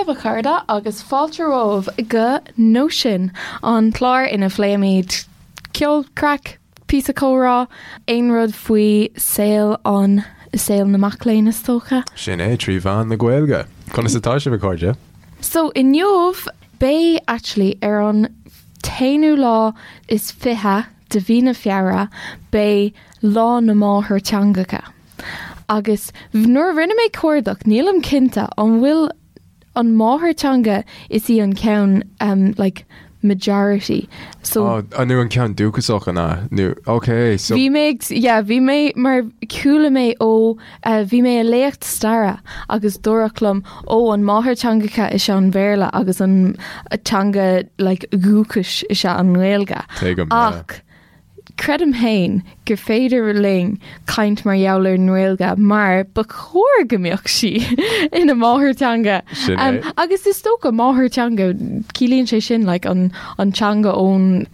daoibh a chairde agus fáilte romhaibh go Nóisean, an clár ina phléimid ceol, craic, píosa comhrá, aon rud faoi saol an, saol na mac léinn is dócha. Sin é, trí mheán na Gaeilge. Conas atá sibh a chairde? So inniu beidh actually ar an t-aonú lá is 20 de mhí na Feabhra beidh Lá na Máthairtheangacha. Agus nuair a rinne mé cuardach nílim cinnte an bhfuil an máthairtheanga is í an ceann um, like majority. So oh, nó an ceann dúchasach an ea? Nó ok so Bhí mé yeah, bhí mé mar chuala mé ó uh, bhí mé i léacht staire agus dúradh liom ó an máthairtheangacha is ea an Bhéarla agus an teanga like, dhúchais is ea an Ghaeilge. Tuigim, yeah. Ach Creidim féin gur féidir linn caint mar gheall ar an nGaeilge mar ba chóir go mbeadh sí ina máthairtheanga. Sin é. Um, agus is dócha máthairtheanga, ciallaíonn sé sin like, an, an teanga ón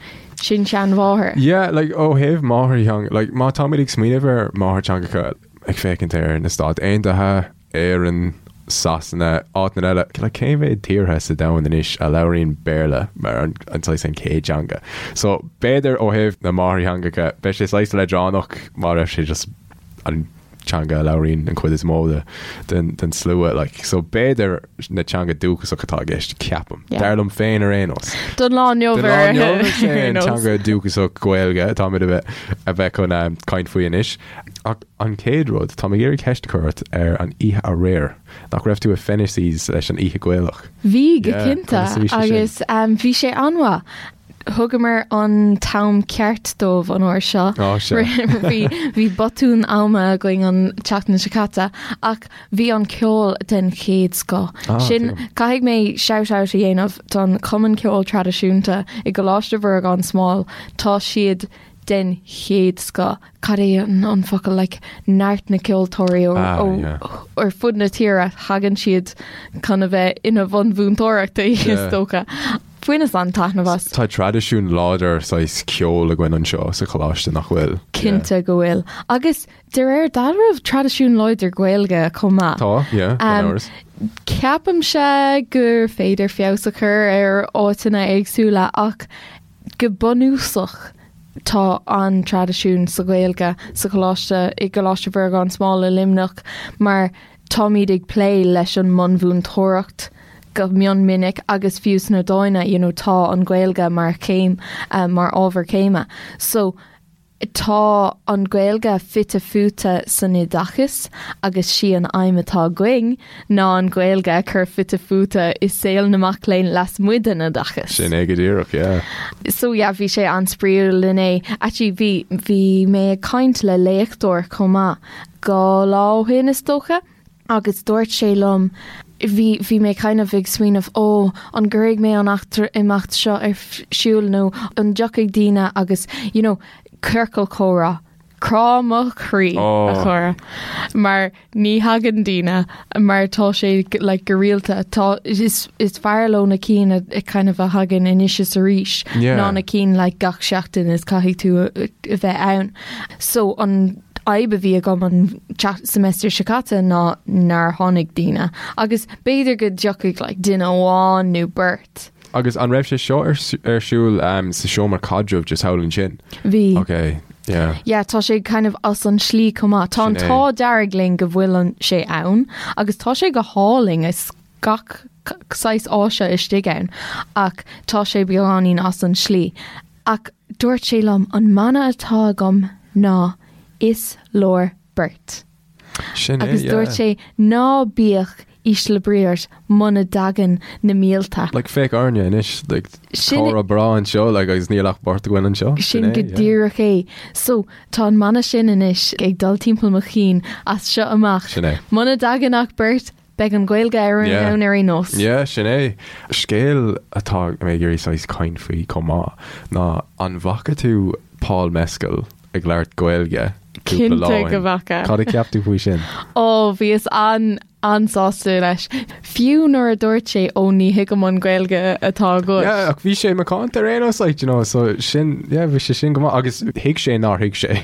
sin-seanmháthair. Yeah, like, ó thaobh máthairtheanga, like, má táimid ag smaoineamh ar máthairtheangacha ag féachaint ar na Stáit Aontaithe, Éirinn, Sasana, áiteanna eile, like cé mhéad tíortha sa domhan anois a labhraíonn Béarla mar an an saghas an chéad teanga? So b'fhéidir ó thaobh na máthairtheangacha beidh sé saghas leadránach má raibh sé just an teanga a labhraíonn an chuid is mó de den den slua like so b'fhéidir na teanga dúchasach atá i gceist ceapaim. Yeah. Dar liom féin ar aon nós. Don lá inniu Don lá ar inniu is é aon an nós. teanga dúchasach Gaeilge atáimid a bheith a bheith chun eh, caint faoi anois. Ach An chéad rud, tá mé ag iarraidh ceist a chur ort ar an oíche aréir. Nach raibh tú i Fennessys leis an oíche Ghaelach? Bhí, go Yeah, cinnte, conas a bhí sé sin? agus bhí sé an-mhaith. Thugamar an t-am ceart dóibh an uair seo. Á, sea. Bhí, bhí botún ama againn an tseachtain seo caite, ach bhí an ceol den chéad scoth. Ah, Sin, tuigim. caithfidh mé shout-out a dhéanamh don Chumann Ceoil Traidisiúnta i gColáiste Mhuire gan Smál. Tá siad den chéad scoth. Cad é an focal like neart na ceoltóirí ó Ah, ó yeah. ar fud na tíre thagann siad chun a bheith ina bhun mhúinteoireachta is Yeah. dócha. Bhaineas an-taitneamh as. Tá traidisiún láidir saghas ceoil againn anseo sa choláiste nach bhfuil? Cinnte go bhfuil. Agus de réir dealraimh traidisiún láidir Gaeilge chomh maith. Tá, yeah, gan Um, amhras. Ceapaimse gur féidir feabhas a chur ar áiteanna éagsúla ach Go bunúsach tá an-traidisiún sa Ghaeilge sa choláiste, i gColáiste Mhuire gan Smál i Luimneach mar táimid ag plé leis an mbunmhúinteoireacht go mion minic agus fiú sna Dána you know tá an Ghaeilge mar chéim, mar ábhar céime. So. Tá an Ghaeilge fite fuaite san oideachas agus sí an aidhm atá againn ná an Ghaeilge a chur fite fuaite i saol na mac léinn lasmuigh den oideachas. Sin é go díreach, yeah. So yeah, bhí sé an-spraíúil inné. Actually bhí, bhí mé ag caint le léachtóir chomh maith 2 lá ó shin is dócha. Agus dúirt sé liom, bhí, bhí mé kind of ag smaoineamh, ó, an gcuirfidh mé an eachtra, imeacht seo ar siúl nó an dtiocfaidh daoine agus, you know, ciorcal comhrá, crá mo chroí, a chara, mar ní thagann daoine mar tá sé like go rialta, tá, is, is fearr leo na cinn a, kind of a thagann anois is arís ná na cinn like gach seachtain is caithfidh tú a, a bheith ann. So an fhadhb a bhí agam an semester seo caite ná nár tháinig daoine agus b'fhéidir go dtiocfaidh like duine amháin nó beirt. Agus an raibh sé seo ar ar siúl um, sa seomra caidrimh just thall ansin? Bhí. Ok, yeah. Yeah, tá sé kind of as an slí chomh maith. Tá an Sin é. t-ádh dearg linn go bhfuil an sé ann agus tá sé go hálainn is gach saghas áise istigh ann ach tá sé beagáinín as an slí. Ach dúirt sé liom, an mana atá agam ná 'Is leor beirt'. Sin é, Agus yeah. dúirt sé, ná bíodh ísle brí ort muna dtagann na mílte. Like, féach orainne anois, like, Sin- comhrá breá anseo, like, agus níl ach beirt againn anseo. Sin é, go yeah. díreach é. So, tá an mana sin anois ag dul timpeall mo chinn as seo amach. Sin é. Muna dtagann ach beirt, Beidh an Ghaeilge ar an Yeah. ann ar aon nós. Yeah, sin é. Scéal atá mé ag iarraidh saghas caint faoi chomh maith ná an bhfaca tú Paul Mescal ag labhairt Gaeilge cúpla lá Cinnte ó go shin? bhfaca. Cad a cheap tú faoi sin? Ó, bhíos an, an-sásta leis. Fiú nuair a dúirt sé, ó ní thuigim an Ghaeilge atá agat. Yeah, ach bhí sé macánta ar aon nós, like, you know, so sin, yeah, bhí sé sin go maith agus thuig sé nár thuig sé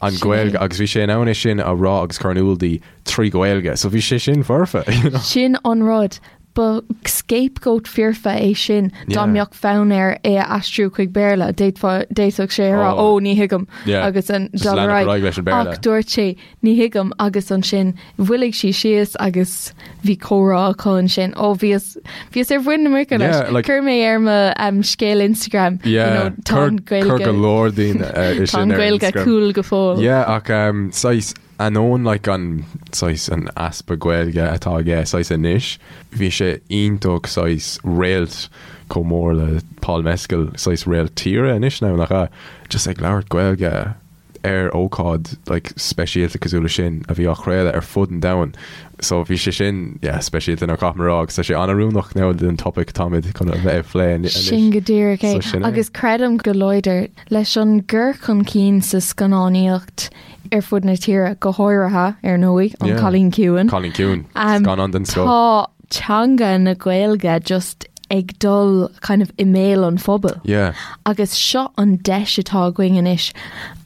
an Sin Ghaeilge é. agus bhí sé in ann é sin a rá agus cur in iúl di trí Ghaeilge, so bhí sé sin foirfe, you know. Sin an rud. Ba scapegoat foirfe é sin dá mbeadh fonn air é a aistriú chuig Béarla, d'fhéadfadh sé a rá ó ní thuigim agus an dul ar aghaidh. Ach dúirt sé ní thuigim agus ansin mhoilligh sí síos agus bhí comhrá acu ansin. Ó bhíos bhíos ar mhuin na muice leis. Chuir mé ar mo scéal Instagram tá an Ghaeilge go leor daoine tá an Ghaeilge cool go fóill. Yeah ach saghas Ainneoin like an saghas an easpa Gaeilge atá aige saghas anois, bhí sé iontach saghas réalt chomh mór le Paul Mescal, saghas réalt tíre anois now, nach ea? Just ag labhairt Gaeilge ar ócáid like speisialta cosúil le sin a bhí á chraoladh ar fud an domhain. So bhí sé sin, yeah, speisialta now caithfidh mé a rá agus tá sé an-oiriúnach now don topaic atáimid chun a bheith ag plé anois. Sin go díreach é. So sin é. Agus creidim go láidir leis an gcur chun cinn sa scannánaíocht ar fud na tíre, go háirithe, ar ndóigh, An Cailín Ciúin. Cailín Ciúin, scannán den scoth. Tá teanga na Gaeilge just ag dul kind of i mbéal an phobail. Yeah. Agus seo an deis atá againn anois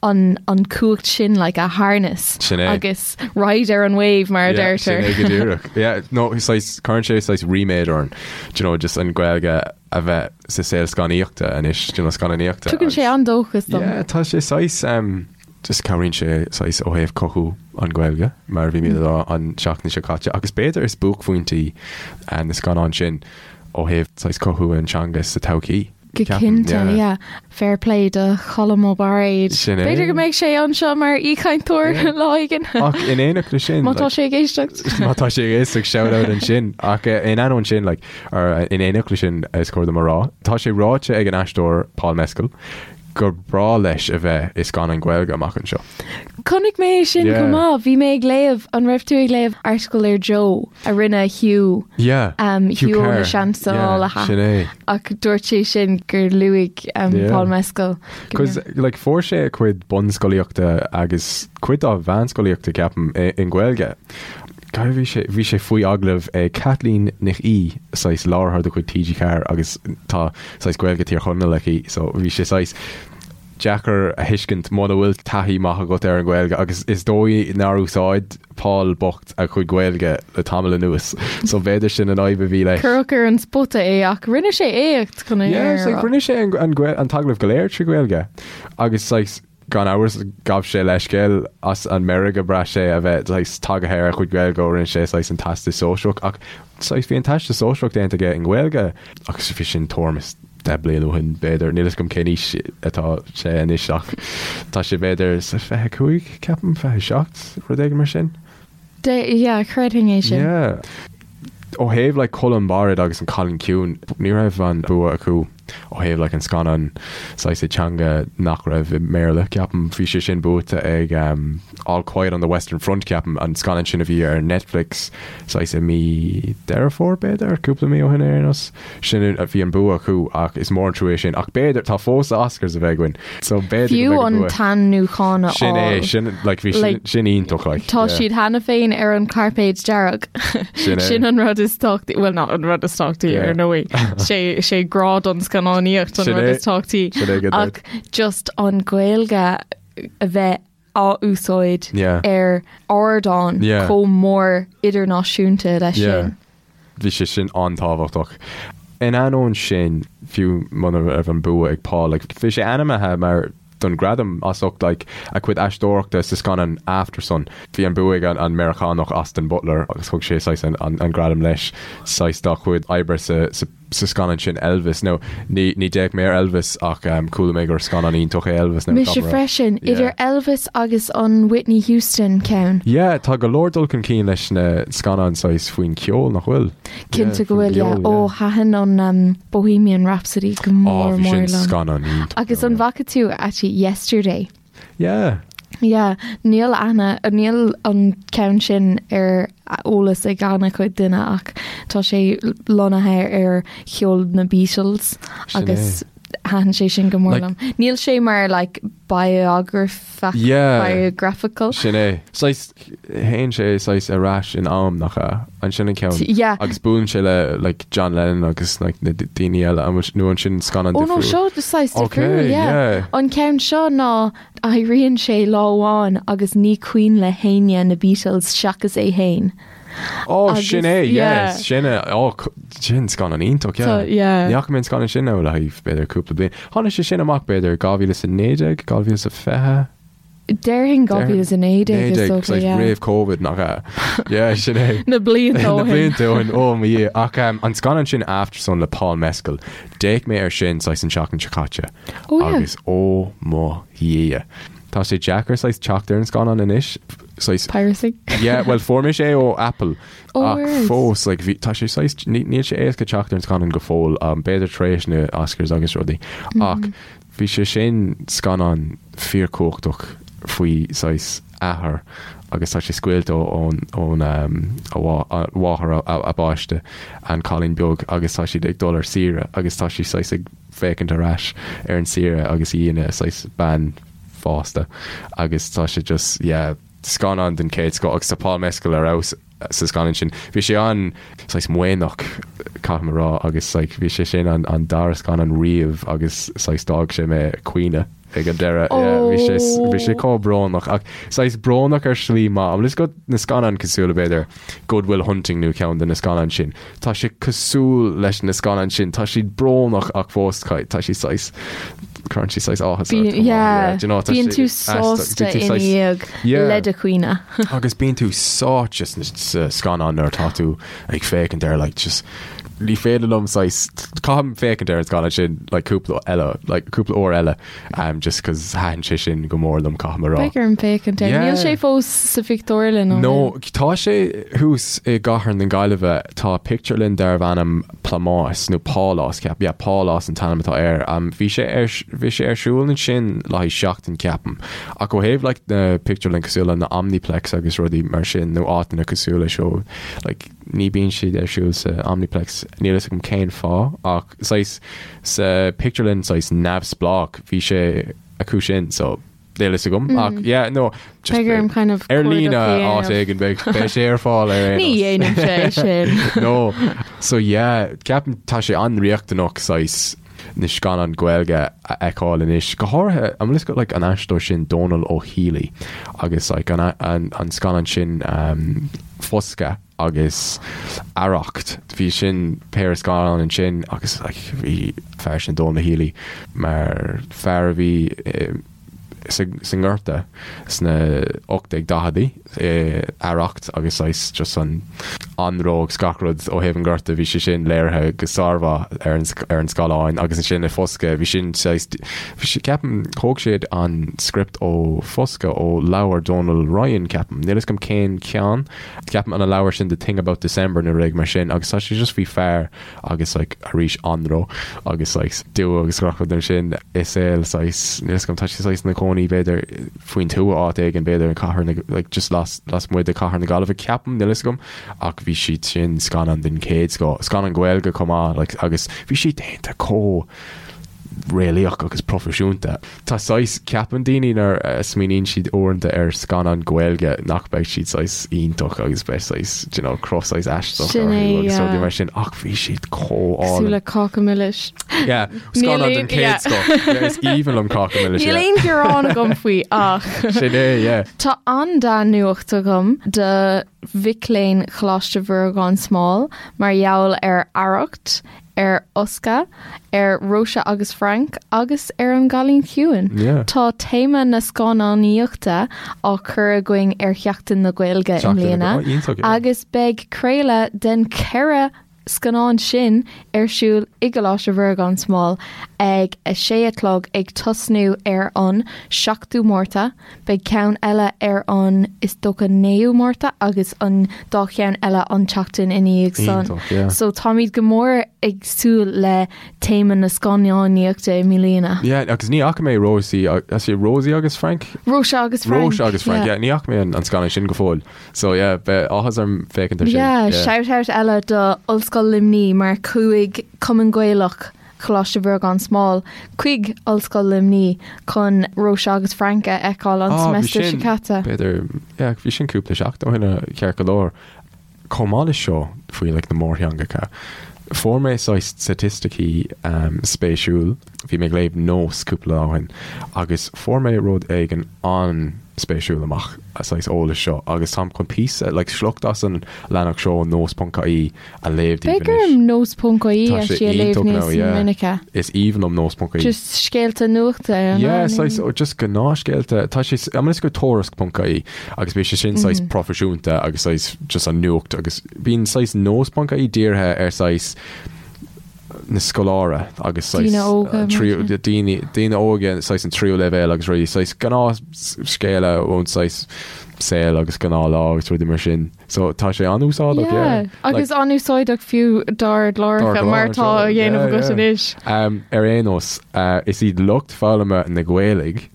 an, an cumhacht sin like a harness. Sin é. Agus ride ar an wave mar a Yeah, deirtear. sin é go díreach. Yeah, no, saghas, cuireann sé saghas ríméad orainn, do you know, just an Ghaeilge a bheith sa saol scannaíochta anois, do you know, scannánaíochta. Tugann sé an-dóchas dom. Yeah, tá sé saghas, um, Just cabhraíonn sé saghas ó thaobh cothú an Ghaeilge, mar a bhí mé ag rá an seachtain seo caite, agus b'fhéidir is buaicphointí na scannáin sin ó thaobh saghas cothú an teanga sa todhchaí. Go cinnte, yeah. Fair play do Cholm Ó Bairéad. Sin é. B'fhéidir go mbeidh sé anseo mar aoichainteoir lá éigin. Ach in éineacht leis sin. Má tá sé ag éisteacht. Má tá sé ag éisteacht, shout out ansin. Ach in ainneoin sin, like, or in éineacht leis sin is cóir dom a rá, tá sé ráite ag an aisteoir Paul Mescal gur breá leis a bheith i scannán Gaeilge amach anseo. Chonaic mé é sin chomh maith. Bhí mé ag léamh, an raibh tú ag léamh article ar Joe a rinne Hugh, Yeah, um, Hugh Hugh ó na Carr. Seansálaithe. Yeah, sin é. Ach dúirt sé sin gur luaigh um, Yeah. Paul Mescal. go Cos like, fuair sé a chuid bunscolaíochta agus cuid dá mheánscolaíochta ceapaim i, i nGaeilge. Cad bhí sé, bhí sé faoi agallamh ag Caitlín Nic Aoidh, saghas láithreoir de chuid TG4 agus tá saghas Gaeilge Thír Chonaill aici so bhí sé saghas deacair a thuiscint muna bhfuil taithí maith agat ar an Ghaeilge agus is dóigh nár úsáid Paul bocht a chuid Gaeilge le tamall anuas so b'fhéidir sin an fhadhb a bhí leis. Cuireadh ar an spota é ach rinne sé éacht chun é Yeah, like, rinne sé an, an, an t-agallamh go léir trí Ghaeilge agus saghas Gan amhras, ghabh sé leithscéal as an meirg a bhraith sé a bheith saghas tagaithe ar a chuid Gaeilge ó rinne sé saghas an Teastas Sóisearach ach saghas bhí an Teastas Sóisearach déanta aige i nGaeilge agus bhí sin tuairim is 10 bliain ó shin b'fhéidir. Níl fhios agam cén aois atá sé anois ach tá sé b'fhéidir sa 25, ceapaim, 27, rud éigin mar sin. De, yeah, chreidfinn é sin. Yeah. Ó thaobh like Colm Bairéad agus an Cailín Ciúin, ní raibh an bua acu ó thaobh like an scannán saghas i teanga nach raibh i mBéarla, ceapaim. Bhí sé sin buaite ag um, All Quiet on the Western Front, ceapaim, an scannán sin a bhí ar Netflix saghas i mí Deireadh Fómhair, b'fhéidir, cúpla mí ó shin ar aon nós. Sin a bhí an bua acu ach is mór an trua é sin. Ach b'fhéidir, tá fós Oscars a bheith againn. So b'fhéidir Fiú go mbeidh an an bua. t-ainmniúchán a Sin é, fháil. sin, like, bhí sin, Like, sin iontach, like. Tá yeah. siad cheana féin ar an cairpéad dearg. Sin é. Sin an rud is tábhachtaí, well not an rud is tábhachtaí Yeah. ar ndóigh. Sé sé grá don scannánaíocht an Sin rud é. is tábhachtaí. Sin é go Ach just an Ghaeilge a bheith á úsáid Yeah. ar ardán Yeah. chomh mór idirnáisiúnta leis Yeah. sin. Bhí sé sin an-tábhachtach. In ainneoin sin, fiú muna raibh an bua ag Paul, like, bhí sé ainmnithe mar don gradam as ucht like, a chuid aisteoireachta sa scannán Aftersun. Bhí an bua ag an, an Meiriceánach Austin Butler agus thug sé saghas an, an, an gradam leis saghas dá chuid oibre sa, sa, sa scannán sin Elvis. Now, ní, ní d'fhéach mé ar Elvis ach um, chuala mé gur scannán iontach é Elvis. Now, Mise caithfidh mé a rá. freisin, Yeah. idir Elvis agus an Whitney Houston ceann. Yeah, tá go leor dul chun cinn leis na scannáin saghas faoin cheol, nach bhfuil? Cinnte Yeah, go faoin bhfuil, yeah. gceol, Ó, yeah. thaitin an um, Bohemian Rhapsody go Ó, mór bhí mór sin liom. scannán iontach. Agus an bhfaca tú actually Yesterday? Yeah. Yeah, níl aithne, níl an ceann sin ar eolas ag an-chuid duine ach tá sé lonnaithe ar cheol na Beatles Sin agus thaitin sé sin go mór Like- liom. Níl sé mar like biograph Yeah. biographical. Sin é. Saghas, théann sé saghas ar ais in am, nach ea? An sin an ceann? Yeah. Agus buaileann sé le like John Lennon agus like na daoine eile, an bhfuil, nó an sin scannán Ó no difriúil? seo saghas Okay, difriúil, yeah. yeah. An ceann seo ná éiríonn sé lá amháin agus ní cuimhin le héinne na Beatles seachas é féin. Ó, sin é, yeah, sin é, ó, sin scannán iontach, yeah. Yeah. Ní fhaca mé an scannán sin ó le haghaidh b'fhéidir cúpla bliain. Tháinig sé sin amach b'fhéidir 2019, 2020? Déarfainn 2019 is dócha, yeah. Roimh Covid nach ea? Yeah, sin é. Na blianta ó shin. Na blianta ó shin, ó mo Dhia. Ach um, an scannán sin Aftersun le Paul Mescal, d'fhéach mé air sin saghas an tseachtain seo caite. Oh yeah. Agus ó mo Dhia. Tá sé deacair saghas teacht ar an scannán anois. Saghas, Piracy. Yeah, well fuair mise é ó Apple. Oh, Ach where's? fós, like, bhí, tá sé saghas, ní, níl sé éasca teacht ar an scannán go fóill, um, b'fhéidir tar éis na Oscars agus rudaí. Ach Bhí sé sin scannán fíorchumhachtach faoi saghas athair agus tá sé scaoilte ón ón a mháthair a bpáiste, an cailín beag agus tá siad ag dul ar saoire agus tá sí saghas ag féachaint ar ais ar an saoire agus í ina saghas bean fásta agus tá sé just yeah scannán den chéad scoth agus tá Paul Mescal ar fheabhas. sa scannán sin. Bhí sé an saghas maoithneach, caithfidh mé a rá, agus like bhí sé sin an an dara scannán riamh agus saghas d'fhág sé mé ag caoineadh ag an deireadh. Yeah, bhí sé bhí sé chomh brónach ach saghas brónach ar shlí maith. An bhfuil fhios agat na scannáin cosúil le b'fhéidir Good Will Hunting nó ceann de na scannáin sin. Tá sé cosúil leis na scannáin sin. Tá siad brónach ach fós tá siad saghas cuireann siad saghas áthas ort chomh maith. Yeah, Do you know, tá bíonn sé tú aisteach. sásta Bíonn tú ina saghas- dhiaidh Yeah. le do chaoineadh. Agus bíonn tú sáite sa scannán nuair atá tú ag féachaint air like just ní féidir liom saghas caithfidh mé féachaint ar an scannán sin like cúpla eile like cúpla uair eile um, just cos thaitin sé sin go mór liom caithfidh mé a rá. Beidh orm féachaint air. Yeah. Níl sé fós sa phictiúrlann ó No, shin. tá sé thuas i gcathair na Gaillimhe, tá pictiúrlann darbh ainm Plámás nó Pálás ceapaim, yeah Pálás an t-ainm atá air. Um, bhí sé ar, bhí sé ar siúl ansin le haghaidh seachtain ceapaim. Ach ó thaobh like na pictiúrlann cosúil le na Omniplex agus rudaí mar sin nó áiteanna cosúil leis seo, like ní bíonn siad ar siúl sa Omniplex, níl fhios agam cén fáth ach saghas sa pictiúrlann saghas neamhspleách bhí sé acu sin so Níl fhios agam ach yeah no just Beidh orm kind of ar líne cuardach a áit dhéanamh. éigin beidh beidh sé ar fáil ar aon Ní nós. dhéanaim sé sin. No so yeah ceapaim tá sé an-riachtanach saghas na scannáin Gaeilge a fheiceáil anois go háirithe an bhfuil fhios agat like an aisteoir sin Dónal Ó Héalaí agus like an an an scannán sin um, Foscadh agus Arracht. Bhí sin péire scannán ansin agus like bhí fear sin Dónal Ó Héalaí mar fear a bhí sa sa nGorta sna 1840idí i Arracht agus saghas just an anró agus gach rud ó thaobh an Ghorta bhí sé sin léirithe go sármhaith ar an ar an scáileán agus ansin i Foscadh bhí sin saghas bhí sé ceapaim thóg siad an script ó Foscadh ó leabhar Dónal Ryan ceapaim níl fhios agam cén ceann Ceapaim an leabhar sin The Thing About December nó rud mar sin agus tá sé just faoi fear agus like arís anró agus like dua agus gach rud mar sin i saol saghas níl fhios agam tá sé saghas ina chónaí b'fhéidir faoin tuath áit éigin b'fhéidir in cathair na like just las lasmuigh de cathair na Gaillimhe ceapaim níl fhios agam ach bhí siad sin scannán den chéad scoth scannán Gaeilge chomh maith like agus bhí siad déanta chomh réalaíoch agus proifisiúnta. Tá saghas, ceapann daoine nuair a smaoiníonn siad uaireanta ar scannán Gaeilge nach mbeidh siad saghas iontach agus beidh saghas, do you know, cruth saghas aisteach Sin orthu é, agus rudaí yeah. mar sin ach bhí siad chomh Cosúil álainn. le Cáca Milis. Yeah, Níl scannán aon- den chéad yeah. scoth. Yeah, is aoibhinn liom Cáca Milis, Níl yeah. aon ghearán agam faoi ach. Sin é, yeah. Tá an-dea-nuacht agam do mhic léinn Choláiste Mhuire gan Smál mar gheall ar Arracht, ar Fhoscadh, ar Róise agus Frank agus ar An gCailín Ciúin. Yeah. Tá téama na scannánaíochta á chur againn ar Sheachtain na Gaeilge i Seachtain na mbliana Ga- oh, iontach, yeah. agus beidh craoladh den cheithre scannán sin ar siúl i gColáiste Mhuire gan Smál ag a sé a chlog ag tosnú ar an 7ú Márta. Beidh ceann eile ar an, is dócha, 9ú Márta agus an dá cheann eile an tseachtain ina dhiaidh san. Iontach, yeah. So táimid go mór ag súil le téama na scannánaíochta i mbliana. Yeah, agus ní fhaca mé Rosie, is é Rosie agus Frank? Róise agus Frank. Róise agus Frank, yeah. yeah, ní fhaca mé an, an scannán sin go fóill. So yeah, beidh áthas orm féachaint ar sin. Yeah, shout out eile do Ollscoil Luimnigh mar chuaigh Cumann Gaelach Choláiste Mhuire gan Smál chuig Ollscoil Luimnigh chun Róise agus Frank a fheiceáil an Ah, bhí seimeastar seo sin, caite. b'fhéidir, yeah, bhí sin cúpla seachtain ó shin ceart go leor. Chomh maith leis seo faoi like, na mórtheangacha, fuair mé saghas staitisticí um, spéisiúil, bhí mé ag léamh Nós cúpla lá ó shin, agus fuair mé rud éigin an. an-spéisiúil amach an saghas eolais seo agus táim chun píosa, like sliocht as an leathanach seo ó nós.ie a léamh daoibh Beidh anois. orm nós.ie Tá sé actually a léamh iontach níos now, yeah. minice. Is aoibhinn liom nós.ie. Just scéalta nuachta ar an Yeah, lá, saghas, nó- oh, just gnáthscéalta. Tá sé, I'm gonna go tuairisc.ie agus bíonn sé sin saghas proifisiúnta agus saghas just an nuacht agus bíonn saghas nós.ie dírithe ar saghas na scoláire agus saghas Daoine óga, mar tríú- sin. daoine daoine óga saghas an tríú leibhéal agus rudaí saghas gnáth scéala ón saghas saol agus gnáth lá agus rudaí mar sin. So tá sé an-úsáideach, Yeah, yeah. agus an-úsáideach fiú dár gcláracha mar tá á dhéanamh agat anois. Um, ar aon nós, uh, is iad lucht foghlama na Gaeilge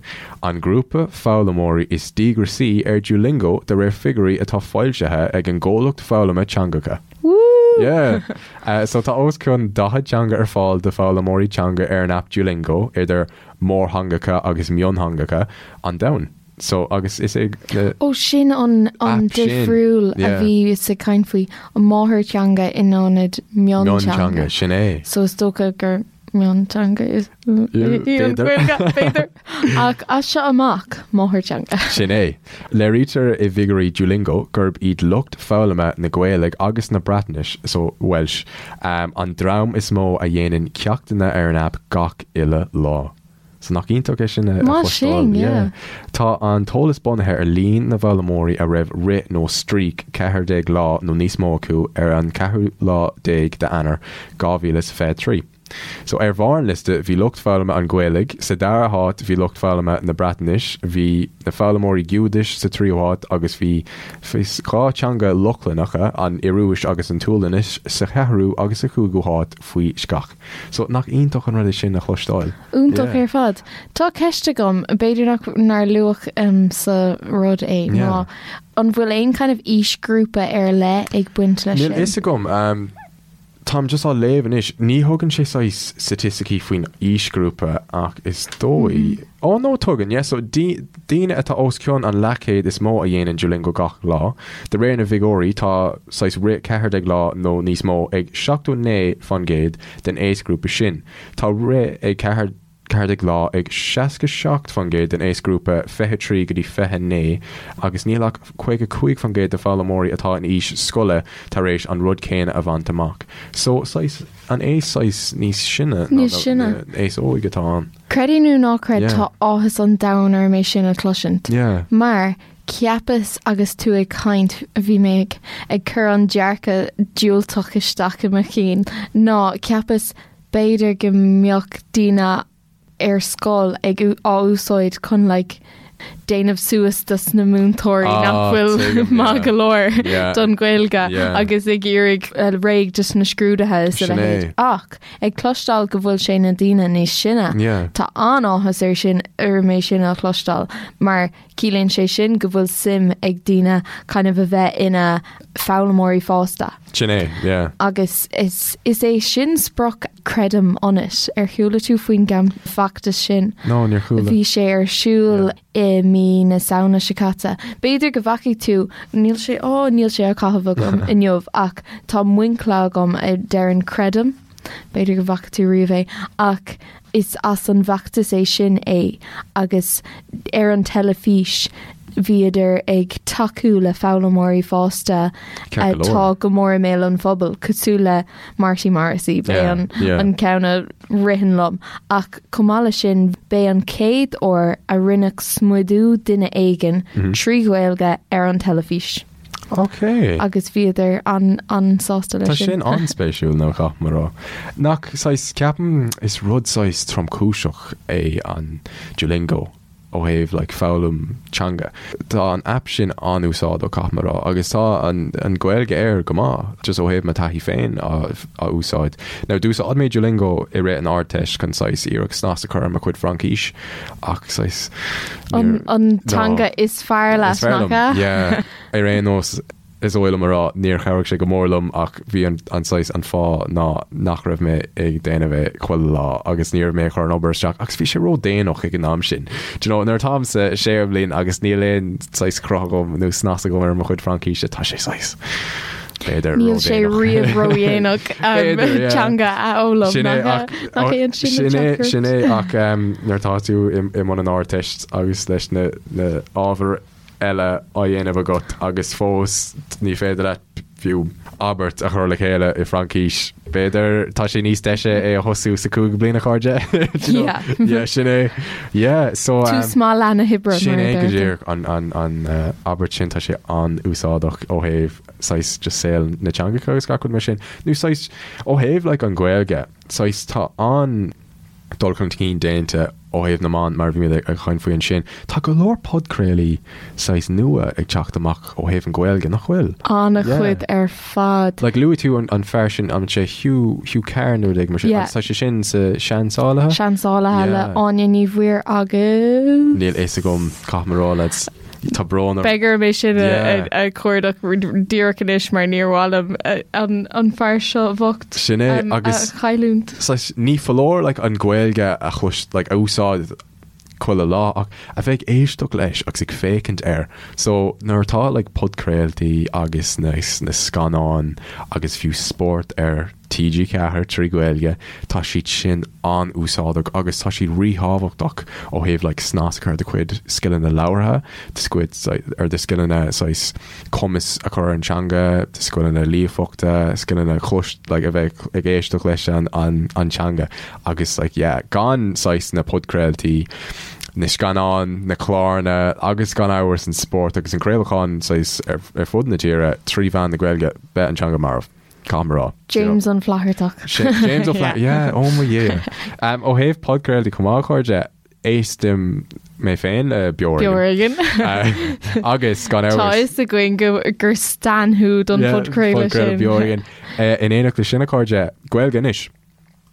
an grúpa foghlaimeoirí is díograisí ar Duolingo de réir figiúirí atá foilsithe ag an gcomhlacht foghlama teangacha. Woo! Yeah. Uh, so tá os cionn 40 teanga ar fáil do foghlaimeoirí teanga ar an aip Duolingo, idir mórtheangacha agus miontheangacha an domhain. So agus is é na. Ó sin an an Aip sin, difriúil a yeah. bhíos ag caint faoi, an máthairtheanga in ionad mionteanga. Mionteanga, sin é. So is dócha gur mionteanga is í an b'fhéidir. Ghaeilge, b'fhéidir. Ach as seo amach, máthairtheanga. Sin é. Léirítear i bhfigiúirí Duolingo gurb iad lucht foghlama na Gaeilge agus na Breatnaise, so Welsh, an dream is mó a dhéanann ceachtanna ar an aip gach uile lá. So nach iontach é sin a Maith chloisteáil? sin, yeah. Tá an t-eolas bunaithe ar líon na bhfoghlaimeoirí a raibh rith nó streak 14 lá nó níos mó acu ar an ceathrú lá déag d'Eanáir 2023. So ar bharr an liosta bhí lucht foghlama an Ghaeilge, sa dara háit bhí lucht foghlama na Breatnaise, bhí na foghlaimeoirí Giúdais sa tríú háit agus bhí 2 teanga Lochlannacha, an Ioruais agus an tSualainnis, sa cheathrú agus sa chúigiú háit faoi seach. So nach iontach an rud é sin a chloisteáil? Iontach Yeah. ar fad. Tá ceist agam, b'fhéidir nach nár luadh um, sa rud é, Yeah. ná an bhfuil aon kind of aoisghrúpa ar leith ag baint leis Níl sin? fhios agam. Um, táim just á léamh anois. Ní thugann sé saghas staitisticí faoin aoisghrúpa ach is dóigh. Mm-hmm. Ó no tugann, yeah, so daoine atá os cionn an leathchéad is mó a dhéanann Duolingo gach lá. De réir na bhfigiúirí, tá saghas rith 14 lá nó níos mó ag 79% den aosghrúpa sin. Tá rith ag 14 lá ag 67% den aosghrúpa 23 go dtí 29 agus níl ach 55% de foghlaimeoirí atá in aois scoile tar éis an rud céanna a bhaint amach. So, saghas, an aos saghas níos sine ná Níos sine. an aos óig atá ann. Creid é nó ná creid Yeah. tá áthas an domhain orm é sin a chloisint. Yeah. Mar cheapas agus tú ag caint bhí mé ag ag cur an dearcadh diúltach isteach i mo chinn ná cheapas b'fhéidir go mbeadh daoine ar scoil ag á úsáid chun like déanamh suas dos na múinteoirí Ah, nach bhfuil tuigim, maith yeah. go leor Yeah. don Ghaeilge Yeah. agus ag iarraidh eh, réidh dos na scrúduithe is a Sin é. leithéid. Ach ag cloisteáil go bhfuil sé na daoine níos sine, Yeah. tá an-áthas ar sin orm é sin a chloisteáil mar ciallaíonn sé sin go bhfuil suim ag daoine kind of a bheith ina foghlaimeoirí fásta. Sin é, yeah. Agus is is é sin sprioc Creidim Ionat. Ar chuala tú faoin gcam feachtas sin? No, níor chuala. Bhí sé ar siúl i mí na Samhna seo caite. B'fhéidir go bhfacaigh tú, níl sé, ó, níl sé á chaitheamh agam inniu ach tá muincle agam a deireann Creidim. B'fhéidir go bhfaca tú riamh é ach is as an bhfeachtas é sin é agus ar an teilifís bhíodar ag tacú le foghlaimeoirí fásta Ceart go leor. atá go mór i mbéal an phobail, cosúil le Marty Morrissey, b'é Yeah, an yeah. an ceann a ritheann liom. Ach chomh maith leis sin, b'é an chéad uair a rinneadh smidiú duine éigin trí Ghaeilge ar an teilifís. Ok. Agus bhíodar an an-sásta leis Tá sin. sin an-spéisiúil nó caithfidh mé a rá. Nach saghas, ceapaim is rud saghas tromchúiseach é an Duolingo ó thaobh like foghlaim teanga. Tá an aip sin an-úsáideach caithfidh mé a rá agus tá an an Ghaeilge air go maith just ó thaobh mo taithí féin á á úsáid. Now d'úsáid mé Duolingo i rith an Ardteist chun saghas iarracht snas a chur ar mo chuid Fraincis ach saghas An níor an no. teanga is fearr leat, Is fearr nach liom, ea? yeah. Ar aon nós, is dóigh liom a rá, níor chabhraigh sé go mór liom ach bhí an an saghas an fáth ná nach raibh mé ag déanamh é chuile lá agus ní raibh mé ag cur an obair isteach agus bhí sé ró-déanach ag an am sin. Do you know, nuair atáim sa séú bliain agus níl aon saghas cruth agam nó snas agam ar mo chuid Fraincíse, tá sé saghas. B'fhéidir Níl sé ródhéanach. riamh ródhéanach B'fhéidir, yeah. teanga a fhoghlaim. Sin é, Nach ach- nach é an sin sin an é, teachtaireacht? sin é ach um, nuair atá tú i, i mbun an Ardteist agus leis na, na ábhair eile á dhéanamh agat agus fós ní féidir leat fiú abairt a chur le chéile i Fraincis. B'fhéidir tá sé níos deise é a thosú sa cúigiú bliain a chairde. Do you know? Yeah. Yeah, sin é. Yeah, so um, Tús maith leath na hoibre sin mar a é go deirtear. díreach an, an, an uh, abairt sin tá sé an-úsáideach ó thaobh saghas just saol na teangacha agus gach rud mar sin. Nó saghas ó thaobh like an Ghaeilge, saghas tá an dul chun cinn déanta ó thaobh na meán mar a bhí mé ag caint faoi ansin. Tá go leor podchraolaí saghas nua ag teacht amach ó thaobh an Ghaeilge, nach bhfuil? An-chuid ar fad. Like luaigh tú an, an fear sin, an sé Hugh, Hugh Carr nó rud éigin mar sin, Yeah. agus tá sé sin sa Seansálaithe? Seansálaithe le Yeah. Áine Ní Mhuirí agus Níl fhios agam caithfidh mé a rá lads. Tá brón orm. Beidh orm é sin a chuardach díreach anois mar níor mhaith liom an fear seo bhocht Sin é agus a chailliúint. Saghas ní foláir like an Ghaeilge a chlois like a úsáid chuile lá ach a bheith ag éisteacht leis agus ag féachaint air. So nuair atá like podchraoltaí agus na na scannáin agus fiú spórt ar TG4 trí Ghaeilge, tá siad sin an-úsáideach agus tá siad ríthábhachtach ó thaobh like snas a chur ar do chuid scileanna labhartha, do chuid ar do scileanna saghas cumas a chur ar an teanga, do scileanna líofachta, scileanna chlois like a bheith ag éisteacht leis an an an teanga agus like yeah gan saghas na podchraoltaí, na scannáin, na cláranna agus gan amhras an spórt agus an craolachán saghas ar ar fud na tíre trí mheán na Gaeilge, beidh an teanga marbh. Caithfidh mé a rá. James Ó Flathartach. James Ó Flathartach, yeah, oh my yeah. Um, ó thaobh podchraoltaí chomh maith, a chairde, éistim mé féin le Beo Ar Beo Ar Éigean. Éigean. Uh, agus gan Tá amhras. fhios againn go, gur stan thú don Yeah, phodchraoladh podchraoladh sin. Beo Ar Éigean. Uh, in éineacht leis sin, a chairde, Gaeilge Anois.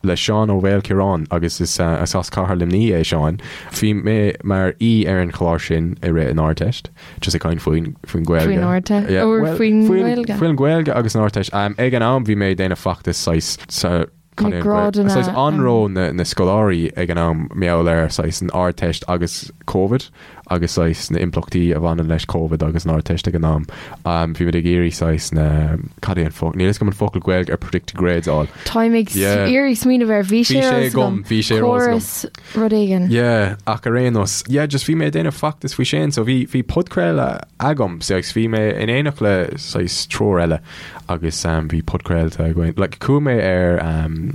le Seán Ó Maoilchiaráin agus is as Cathair Luimnigh é Seán. Bhí mé mar aoi ar an chlár sin i rith an Ardteist, just ag caint faoin faoin Ghaeilge. Faoin Ardteist? Yeah, Or well, faoin Ghaeilge? Faoin Ghaeilge agus an Ardteist. Um, ag an am bhí mé ag déanamh feachtas saghas sa Na cad é an Ghaeilge? grádanna, Saghas um, anró na, na scoláirí ag an am mar gheall ar saghas an Ardteist agus Covid. agus saghas na impleachtaí a bhaineann leis Covid agus an Ardteist ag an am. Bhí muid ag iarraidh saghas na, cad é an focal, níl fhios agam an focal Gaeilge ar predicted grades a fháil. Táim ag Yeah. iarraidh smaoineamh air, bhí Bhí sé sé ar eolas agam, agam. bhí sé ar eolas agam. Córas rud éigin. Yeah, ach ar aon nós, yeah, just bhí mé ag déanamh feachtas faoi sin, so bhí, bhí podchraoladh agam, so agus bhí mé in éineacht le saghas triúr eile agus um, bhí podchraolta againn. Like, chuaigh mé ar um,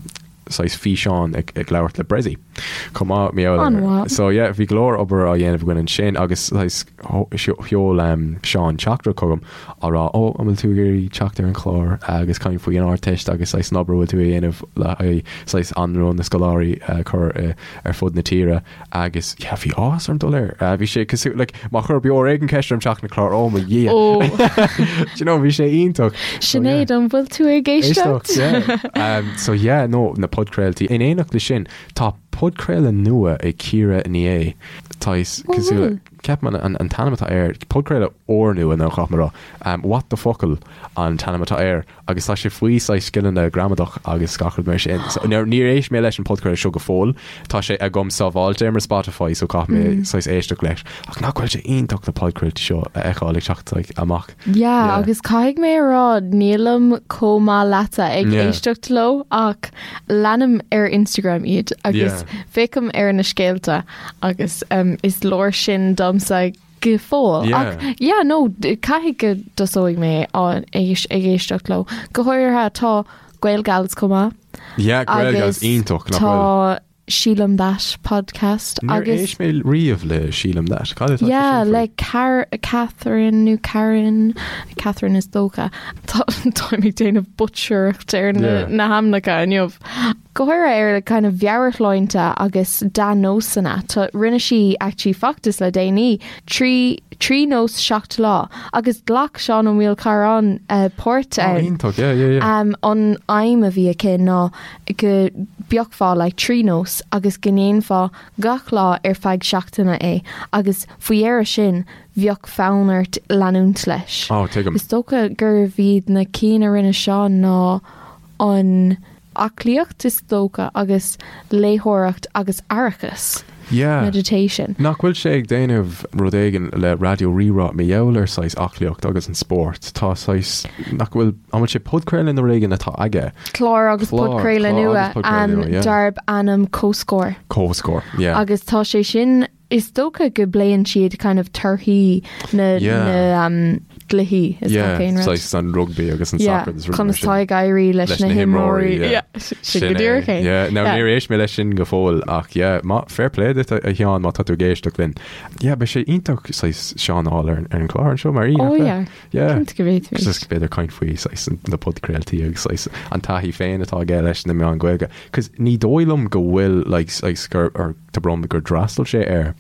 saghas físeán ag ag labhairt le Bressie chomh maith mar gheall air. An-mhaith. So yeah, bhí go leor obair á dhéanamh againn ansin agus saghas sheol um, Seán teachtaireacht chugam á rá ó an bhfuil tú ag iarraidh teacht ar an chlár agus caint faoi an Ardteist agus saghas an obair a bhfuil tú a dhéanamh le haghaidh saghas anró na scoláirí a chur ar fud na tíre agus yeah, bhí áthas orm dul air. Uh, bhí sé cosúil like, má chuir Beo Ar Éigean ceist orm teacht ar an chlár oh my Dhia. Ó, Do you know, bhí sé iontach. So, yeah. Sinéad, an bhfuil tú ag éisteacht? Éisteacht, yeah. Um, so yeah, no, na podchraoltaí. In éineacht le sin, tá podchraoladh nua ag Ciara Ní É. Tá is Ó, cosúil bhfuil? ceapaim an, an, an t-ainm atá air, podchraoladh úrnua nó caithfidh mé a rá. Um, What the Focal an t-ainm atá air agus tá sé faoi saghas scileanna gramadach agus gach rud mar sin. So, níor níor éist mé leis an podchraoladh seo go fóill. Tá sé agam sábháilte ar mo Spotify so caithfidh mé saghas éisteacht leis. Ach nach bhfuil sé iontach na podchraoltaí seo a fheiceáil ag teacht like, amach. Yeah, Yeah. agus caithfidh mé a rá nílim chomh maith leatsa ag Yeah. éisteacht leo ach leanaim ar Instagram iad agus Yeah. féachaim ar na scéalta agus um, is leor sin domsa go fóill. Yeah. Ach yeah, no, caithfidh go dtosóidh mé á éis- ag éisteacht leo. Go háirithe tá Gaelgals chomh maith. Yeah, Gaelgals Agus iontach nach bhfuil. Tá Sílim That podcast Níor agus éist mé riamh le Sílim That. Cad é tá sé Yeah, sin faoi? le Car Catherine nó Karen Catherine is dócha. Tá táim ag déanamh butchereacht ar na, Yeah. na hainmneacha inniu. Go háirithe ar kind of mheabhairshláinte agus dea-nósanna. Tá rinne sí actually feachtas le déanaí 3 3 nós 7 lá agus ghlac Seán Ó Maoilchiaráin uh, páirt Oh, ann. iontach, yeah, yeah, yeah. Um, an aidhm a bhí aici ná go bpiocfá like 3 nós agus go ndéanfá gach lá ar feadh seachtaine é agus faoi dheireadh sin bheadh fonn ort leanúint leis. Oh, tuigim. Is dócha gurbh iad na cinn a rinne Seán ná an aclaíocht is dócha agus léitheoireacht agus aireachas. Yeah. meditation. Nach bhfuil sé ag déanamh rud éigin le Raidió Rí-Rá mar gheall ar saghas aclaíocht agus an spórt? Tá saghas, nach bhfuil, an bhfuil sé podchraoladh nó rud éigin atá aige? Clár agus Clár, podchraoladh clár nua agus podchraoladh nua, yeah. darb ainm Comhscór. Comhscór, yeah. Agus tá sé sin Is dócha go bpléann siad kind of torthaí na Yeah. na um, gcluichí is Yeah, gach aon rud. saghas an rugby agus an Yeah, soccer agus rudaí mar conas sin. tá ag éirí leis Leis na na himreoirí. himreoirí, yeah. Yeah, sin Sin go é. díreach é. Yeah, now Yeah. níor éist mé leis sin go fóill ach yeah, má, fair play duit a a Sheáin má tá tú ag éisteacht linn. Yeah, beidh sé iontach saghas Seán a fháil ar ar an chlár anseo mar aoi, Oh nach bhfuil? yeah, Yeah. cinnte go bhféadfaimid. Just b'fhéidir caint faoi saghas na podchraoltaí agus saghas an taithí féin atá aige leis na meáin Ghaeilge. 'Cause ní dóigh liom go bhfuil like saghas gur or Tá brón orm gur d'fhreastail sé ar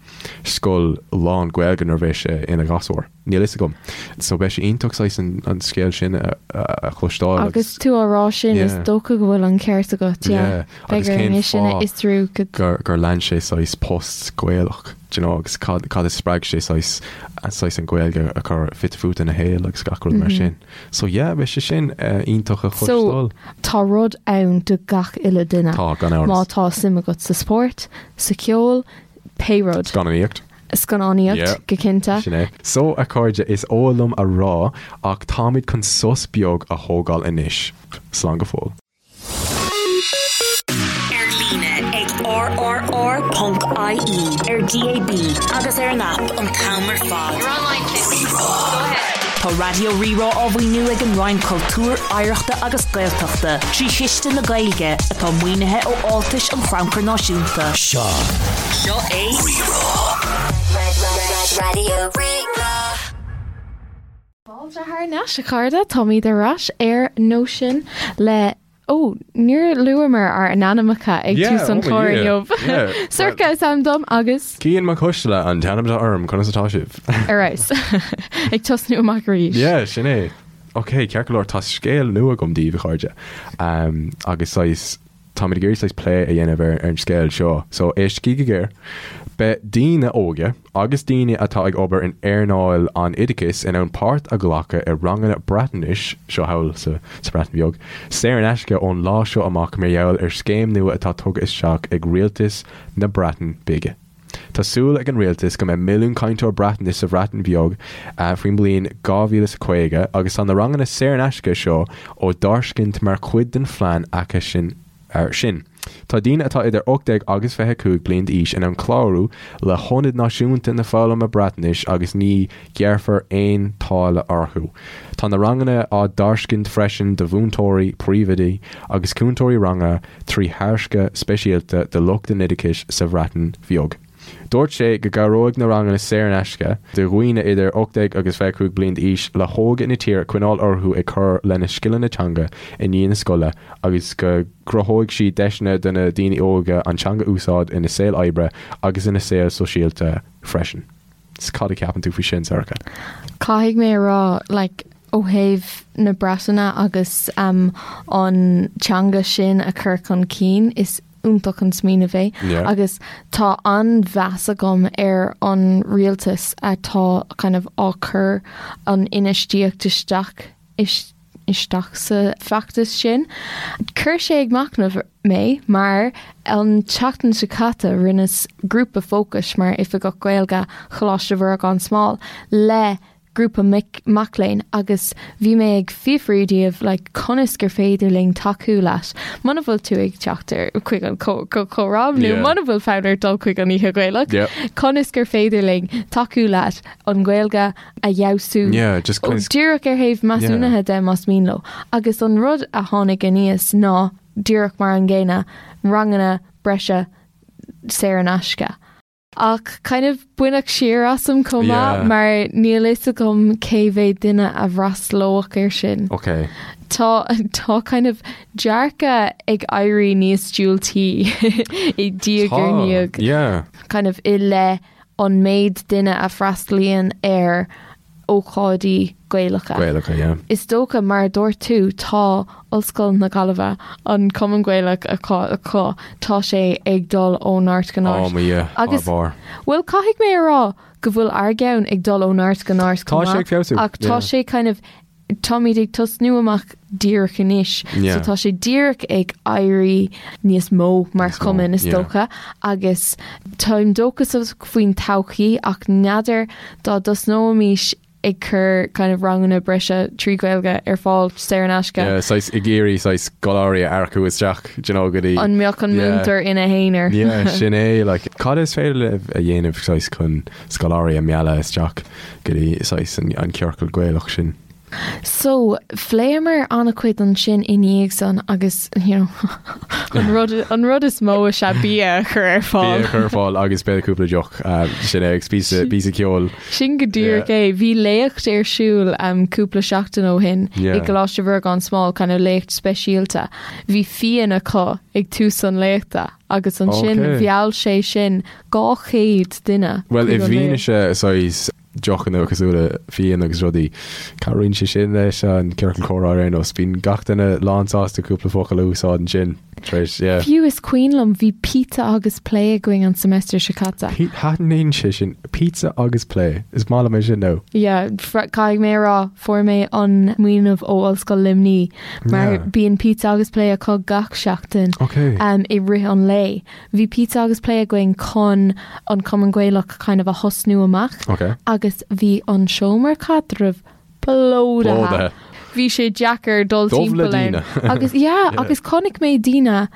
scoil lán Gaeilge nuair a bhí sé ina ghasúr. Níl fhios agam. So beidh sé iontach saghas an scéal sin a chloisteáil Agus tú á rá sin, is dócha go bhfuil an ceart agat, yeah. Agus Beidh orainn cén é sin a fáth fhiosrú go. gur gur lean sé saghas post Gaelach, do you know, agus cad cad a spreag sé saghas saghas an Ghaeilge a chur fite fuaite ina shaol agus gach rud mar sin. So yeah, beidh sé sin iontach a So, chloisteáil. tá rud ann do gach uile duine. Tá, gan amhras. Má tá suim agat sa spórt, sa cheol, pé rud. Scannánaíocht. Scannánaíocht, Yeah. go cinnte. Sin é. So, a chairde, is oth liom a rá ach táimid chun sos beag a thógáil anois. Slán go fóill. Ar líne ag rrr.ie, ar DAB agus ar an aip an t-am ar fad. Tá Raidió Rí-Rá á mhaoiniú ag an Roinn Cultúir, Oidhreachta agus Gaeltachta trí Chiste na Gaeilge, atá maoinithe ó fháltais an Chrannchuir Náisiúnta. Seo Seo é Rí-Rá. Raidió Rí-Rá. Fáilte thar n-ais, a chairde, táimid ar ais ar Nóisean le, ó, níor luamar ár n-ainmneacha ag Yeah, tús an oh my chláir Dhia. inniu. Yeah. Sorcha is ainm dom agus Cian Mac Coisteala an t-ainm atá orm, conas atá sibh? ar fheabhas. Ag tosnú amach arís. Yeah, sin é. Ok, ceart go leor, tá scéal nua agam daoibh, a chairde. Um, agus saghas, Táimid ag iarraidh saghas plé a dhéanamh ar an scéal seo, so éistigí go géar. Beidh daoine óga agus daoine atá ag obair in earnáil an oideachais in ann páirt a ghlacadh i ranganna Breatnaise, seo thall sa Bhreatain Bheag, saor in aisce ón lá seo amach mar gheall ar scéim nua atá tugtha isteach ag rialtas na Breataine Bige. Tá súil ag an rialtas go mbeidh milliún cainteoir Breatnaise sa Bhreatain Bheag faoin mbliain 2050 agus tá na ranganna saor in aisce seo á dtairscint mar chuid den phlean acu sin. Tá daoine atá idir 18 agus 25 bliain d'aois in ann clárú le hIonad Náisiúnta na Foghlama Breatnaise agus ní ghearrfar aon táille orthu. Tá na ranganna á dtairscint freisin do mhúinteoirí, príomhoidí agus cúntóirí ranga 3 thairsce speisialta do lucht an oideachais sa Bhreatain Bheag. Dúirt sé go gcabhróidh na ranganna saor in aisce do dhaoine idir 18 agus 25 bliain d'aois le hóige na tíre coinneáil orthu ag cur lena scileanna teanga i ndiaidh na scoile agus go gcruthóidh siad deiseanna do na daoine óga an teanga a úsáid ina saol oibre agus ina saol sóisialta freisin. Cad a cheapann tú faoi sin, Sorcha? Caithfidh mé a rá, like, ó thaobh na Breataine agus um, an teanga sin a chur chun cinn, is iontach an smaoineamh é. Yeah. Agus tá an-mheas agam ar an rialtas atá kind of á cur an infheistíocht isteach isteach sa bhfeachtas sin. Chuir sé ag machnamh mé mar an tseachtain seo caite rinneas grúpa fócais mar Oifigeach Gaeilge Choláiste Mhuire gan Smál le grúpa mic mac léinn agus bhí mé ag fiafraí díobh like conas gur féidir linn tacú leat muna bhfuil tú ag teacht ar chuig an chomhrá nó Yeah. muna bhfuil fonn ort dul chuig an Oíche Ghaelach Yeah. conas gur féidir linn tacú leat an Ghaeilge a fheabhsú Yeah, just Ó, conas- díreach ar thaobh measúnaithe de más mian leo. Agus an rud a tháinig aníos ná díreach mar an gcéanna, ranganna breise saor in aisce. Ach kind of baineadh siar asam chomh maith Yeah. mar níl fhios agam cé mhéad duine a fhreastalódh air sin. Ok. Tá tá kind of dearcadh ag éirí níos diúltaí i diaidh ar Tá, ndiaidh. Yeah. kind of i leith an méid duine a freastalaíonn ar ócáidí Gaelacha. Gaelacha, yeah. Is dócha, mar a dúirt tú, tá Ollscoil na Gaillimhe, an Cumann Gaelach acu, tá sé ag dul ó neart go neart. Oh mo Dhia, thar Agus, barr. bhuel, caithfidh mé a rá go bhfuil ár gceann ag dul ó neart go neart Tá chomh sé ag maith, feabhsú, ach tá yeah. sé kind of. Táimid ag tosnú amach díreach anois, so tá sé díreach ag éirí níos mó mar chumann is dócha agus táim dóchasach faoin todhchaí ach n'fheadar dá dtosnóimis ag cur kind of ranganna breise trí Ghaeilge ar fáil saor in aisce. Yeah, saghas ag iarraidh saghas scoláirí a earcú isteach, do you know, go dtí. An mbeadh an múinteoir ina aonar? Yeah, sin é, like, cad is féidir libh a dhéanamh saghas chun scoláirí a mhealladh isteach go dtí saghas an ciorcal Gaelach sin? So, phléamar an-chuid ansin i ndiaidh san agus, you know, an rud, an rud is mó is ea bia a chur ar fáil. Bia a chur ar fáil agus b'fhéidir cúpla deoch, sin é, agus píosa, píosa ceoil. Sin go díreach é. Bhí léacht ar siúl cúpla seachtain ó shin i gColáiste Mhuire gan Smál, kind of léacht speisialta. Bhí fíon acu ag tús an léachta agus ansin mheall sé sin 200 duine. Bhuel, i bhfianaise saghas deochanna cosúil le fíon agus rudaí, cabhraíonn sé sin leis an ciorcal comhrá ar aon nós. Bíonn gach duine lánsásta cúpla focal a úsáid ansin tar éis, yeah. Fiú is cuimhin liom, bhí pizza agus plé againn an semester seo caite. Taitníonn sé sin. Pizza agus plé. Is maith liom é sin nó. Yeah, caithfidh mé a rá, fuair mé an smaoineamh ó Ollscoil Luimnigh mar bíonn pizza agus plé acu gach seachtain i rith an lae. Bhí pizza agus plé againn chun an Cumann Gaelach kind of a thosnú amach Ok. agus bhí an seomra caidrimh plódaithe. Plódaithe. Bhí sé deacair dul Dubh le timpeall ann. daoine. Agus yeah, Yeah. agus chonaic mé daoine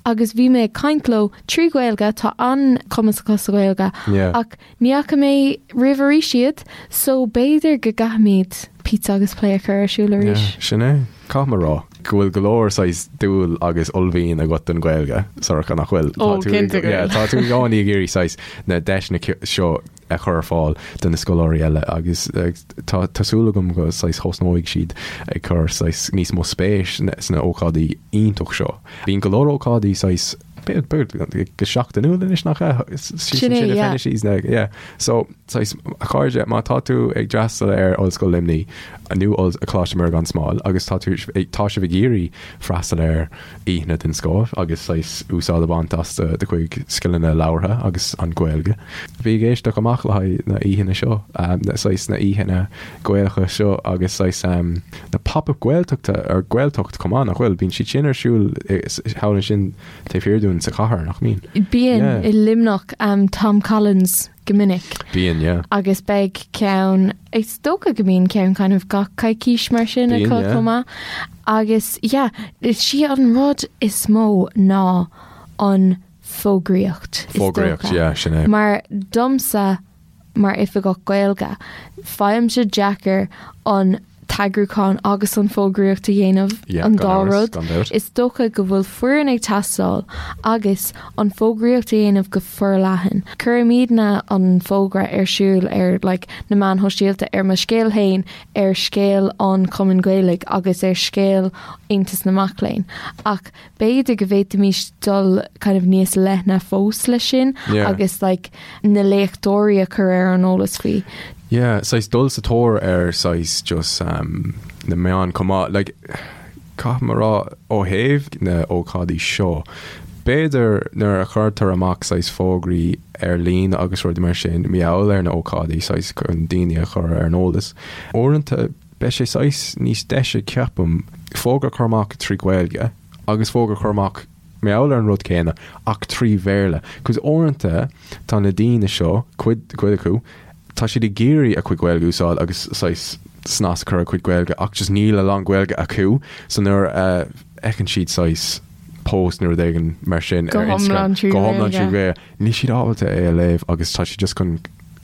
agus bhí mé ag caint leo trí Ghaeilge, tá an-chumas acu sa Ghaeilge Yeah. ach Ní fhaca mé riamh arís iad, so b'fhéidir go gcaithfimid pizza agus plé a chur ar siúl arís. Yeah, sin é. Caithfidh mé a rá go bhfuil go leor saghas dúil agus uaillmhian agat don Ghaeilge, Sorcha, nach bhfuil? Ó, cinnte go Yeah, bhfuil. tá tú i gcónaí ag iarraidh saghas na deiseanna seo a chur ar fáil do na scoláirí eile agus tá tá súil agam go saghas thosnóidh siad ag cur saghas níos mó spéis sna ócáidí iontach seo. Bíonn go leor ócáidí saghas go seachtainiúil anois nach ea? Sin é, yeah. Yeah. So, saghas, a chairde, má tá tú ag freastal ar Ollscoil Luimnigh nó Coláiste Mhuire gan Smál agus tá tú tá sibh ag iarraidh freastal ar oícheanna den scoth agus saghas úsáid a bhaint as do do chuid scileanna labhartha agus an Ghaeilge, bí ag éisteacht amach le haghaidh na oícheanna seo, na saghas na oícheanna Gaelacha seo agus saghas na pop-up Gaeltachta ar Gaeltacht chomh maith, nach bhfuil? Bíonn siad sin ar siúl thall ansin taobh thiar dúinn sa chathair, nach mbíonn? Bíonn, Yeah. i Luimneach, Tom Collins go minic. Bíonn, yeah. Agus beidh ceann, is dócha go mbíonn ceann kind of gach coicís mar sin Bíonn, acu yeah. chomh maith. Agus yeah, is í an rud is mó ná an fógraíocht, is Fógraíocht, dócha. yeah, sin é. Mar domsa, Mar Oifigeach Gaeilge, faighimse deacair an t-eagrúchán agus an fógraíocht a dhéanamh, Yeah, an gan dá amhras, rud. gan dabht. Is dócha go bhfuil foireann ag teastáil agus an fógraíocht a dhéanamh go forleathan. Cuirimidne an fógra ar siúl ar like na meáin shóisialta, ar mo scéal féin, ar scéal an Chumainn Ghaelaigh agus ar scéal Aontas na Mac Léinn. Ach B'fhéidir go bhféadfaimis dul kind of níos leithne fós leis sin Yeah. agus like na léachtóirí a chur ar an eolas faoi. Yeah, saghas dul sa tóir ar saghas just um, na meáin chomh maith. Like, caithfidh mé a rá ó thaobh na ócáidí seo, b'fhéidir nuair a chuirtear amach saghas fógraí ar líne agus rudaí mar sin, mar gheall ar na ócáidí saghas chun daoine a chur ar an eolas. Uaireanta Beidh sé saghas níos deise ceapaim, fógra a chur amach trí Ghaeilge agus fógra a chur amach mar gheall ar an rud céanna ach trí Bhéarla. Cos uaireanta tá na daoine seo, cuid, cuid acu, tá siad ag iarraidh a cuid Gaeilge a úsáid agus saghas snas a chur ar a cuid Gaeilge ach just níl a lán Gaeilge acu so nuair a fheiceann siad saghas post nó rud éigin mar sin Go ar hiomlán Instagram, trí go hiomlán trí Ghaeilge. Ghaeilge, níl siad ábalta é a léamh agus tá siad just chun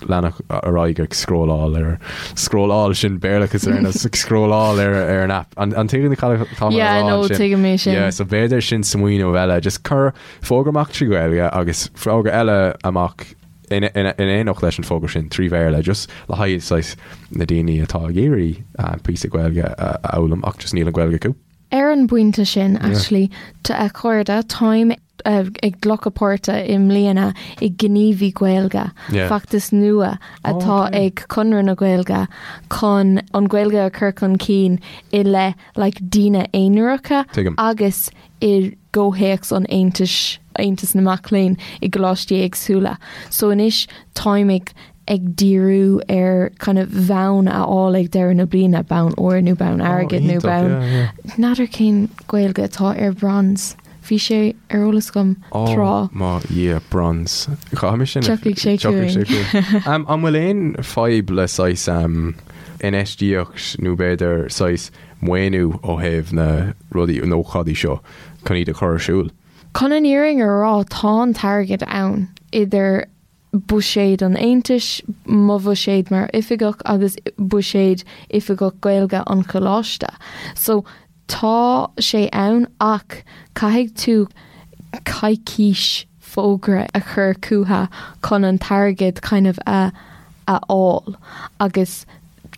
leanacht ar aghaidh ag scrolláil ar scrolláil sin Béarlachas ar nós ag scrolláil ar ar an app. An an tuigeann cad atá mé a Yeah, rá no, ansin? tuigim é sin. Yeah, so b'fhéidir sin smaoineamh eile, just cur fógra amach trí Ghaeilge agus fógra eile amach in in in éineacht leis an fógra sin trí Bhéarla, just le haghaidh saghas na daoine atá ag iarraidh píosa Gaeilge a a fhoghlaim ach just níl an Ghaeilge acu. Ar an bpointe sin, actually, a chairde, táim ag glacadh páirte i mbliana i Gníomhaí Gaeilge, feachtas nua atá ag Conradh na Gaeilge chun an Ghaeilge a chur chun cinn i leith like daoine aonaracha agus i gcomhthéacs an Aontais, Aontas na Mac Léinn i gcoláistí éagsúla. So anois táim ag. ag díriú ar kind of bonn a fháil ag deireadh na bliana, bonn óir nó bonn airgid nó bonn. N'fheadar cén Gaeilge atá ar bronze. Bhí sé ar eolas agam tráth. Ó mo Dhia, bronze. Caithfidh sin. Tiocfaidh sé chugainn. An bhfuil aon fadhb le saghas infheistíocht nó b'fhéidir saghas maoiniú ó thaobh na rudaí, na hócáidí seo chun iad a chur ar siúl? Chun an fhírinne a rá, tá an t-airgead ann, idir buiséad an Aontais, mo bhuiséad mar oifigeach agus buiséad Oifigeach Gaeilge an Choláiste. So, tá sé ann ach caithfidh tú coicís fógra a chur chucu chun an t-airgead kind of a a fháil agus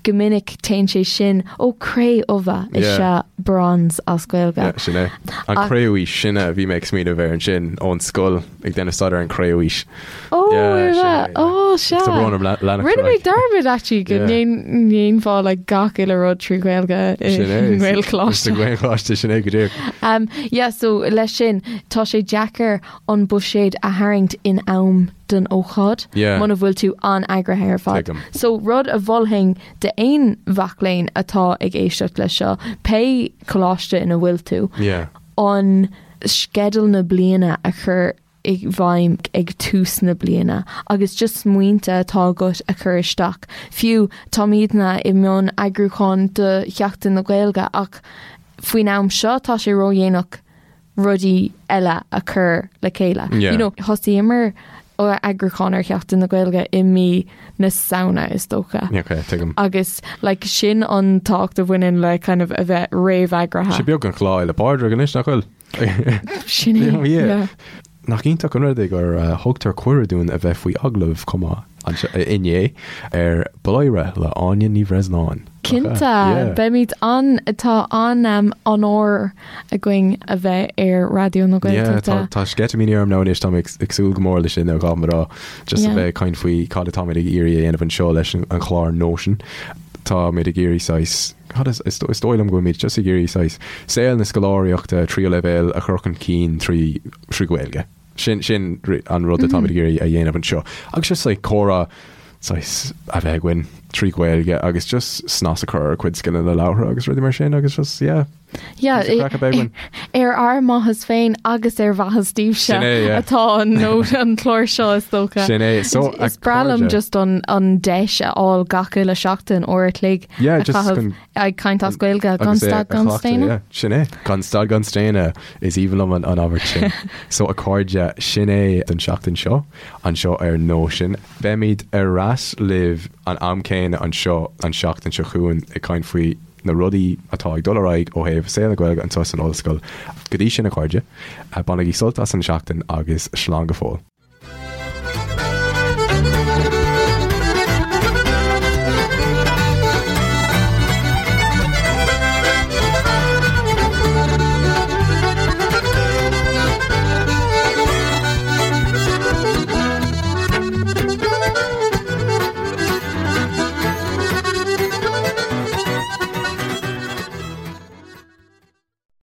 go minic téann sé sin ó cré-umha is ea bronze as Gaeilge. Yeah, sin é. An cré-umhaois, sin a bhí mé ag smaoineamh air ansin ón scoil ag déanamh staidéar an cré-umhaois. Ó, yeah, ó, sea. Tá brón orm leanacht Rinne mé dearmad actually go ndéanfá like gach uile rud trí Ghaeilge i nGaelcholáiste. Sa Ghaelcholáiste sin é go díreach. Um, yeah, so leis sin tá sé deacair an buiséad a tharraingt in am don ócáid muna bhfuil tú an-eagraithe ar fad. So rud a mholfainn d'aon mhac léinn atá ag éisteacht leis seo, pé coláiste ina bhfuil tú, an sceideal na bliana a chur i bhfeidhm ag tús na bliana agus just smaointe atá agat a chur isteach. Fiú táimidne i mbun eagrúcháin do Sheachtain na Gaeilge ach faoin am seo tá sé ródhéanach rudaí eile a chur le chéile. Yeah. You know, thosaíomar eagrúchán ar Sheachtain na Gaeilge i mí na Samhna is dócha. Okay, tuigim. Agus like, sin an tábhacht a bhaineann le kind of a bheith réamheagraithe. Sé beag an Lá Fhéile Pádraig anois nach bhfuil? Sin é. Yeah. Yeah. Nach iontach an rud é gur thugtar cuireadh dúinn a bheith faoi agallamh chomh maith anseo inné ar Bladhaire le Áine Ní Bhreisleáin. Cinnte, beimid an, tá an onóir againn a bheith ar Raidió na Gaeltachta. Tá sceitimíní orm now anois, táim ag súil go mór leis sin a ghabh rá, just a bheith ag caint faoi cad atáimid ag iarraidh a dhéanamh anseo leis an chlár Nóisean. Táimid ag iarraidh saghas, cad is, is dóigh liom go bhfuilimid just ag iarraidh saghas saol na scoláireachta tríú leibhéal a chur chun cinn trí trí Ghaeilge. Sin sin an rud atáimid ag iarraidh a dhéanamh anseo. Agus just like comhrá saghas a bheith againn trí Ghaeilge agus just snas a chur ar ár gcuid scileanna labhartha agus rudaí mar sin agus just yeah. Yeah, craic a bheith againn. ar ár maitheas féin agus ar mhaitheas daoibhse Sin é, yeah. atá an nó an clár seo is dócha. Sin é. So, Is breá liom just an, an deis a fháil gach uile seachtain uair a chloig Yeah, a just chaitheamh chun Ag caint as Gaeilge gan stad gan staonadh? Sin é. Gan stad gan staonadh is aoibhinn liom an abairt sin. So a chairde, sin é don seachtain seo, anseo ar Nóisean. Beimid ar ais libh an am céanna anseo an seachtain seo chugainn ag caint faoi na rudaí atá ag dul ar aghaidh ó thaobh saol na Gaeilge anseo san ollscoil. Go dtí sin a chairde, bainigí sult as an seachtain agus slán go fóill.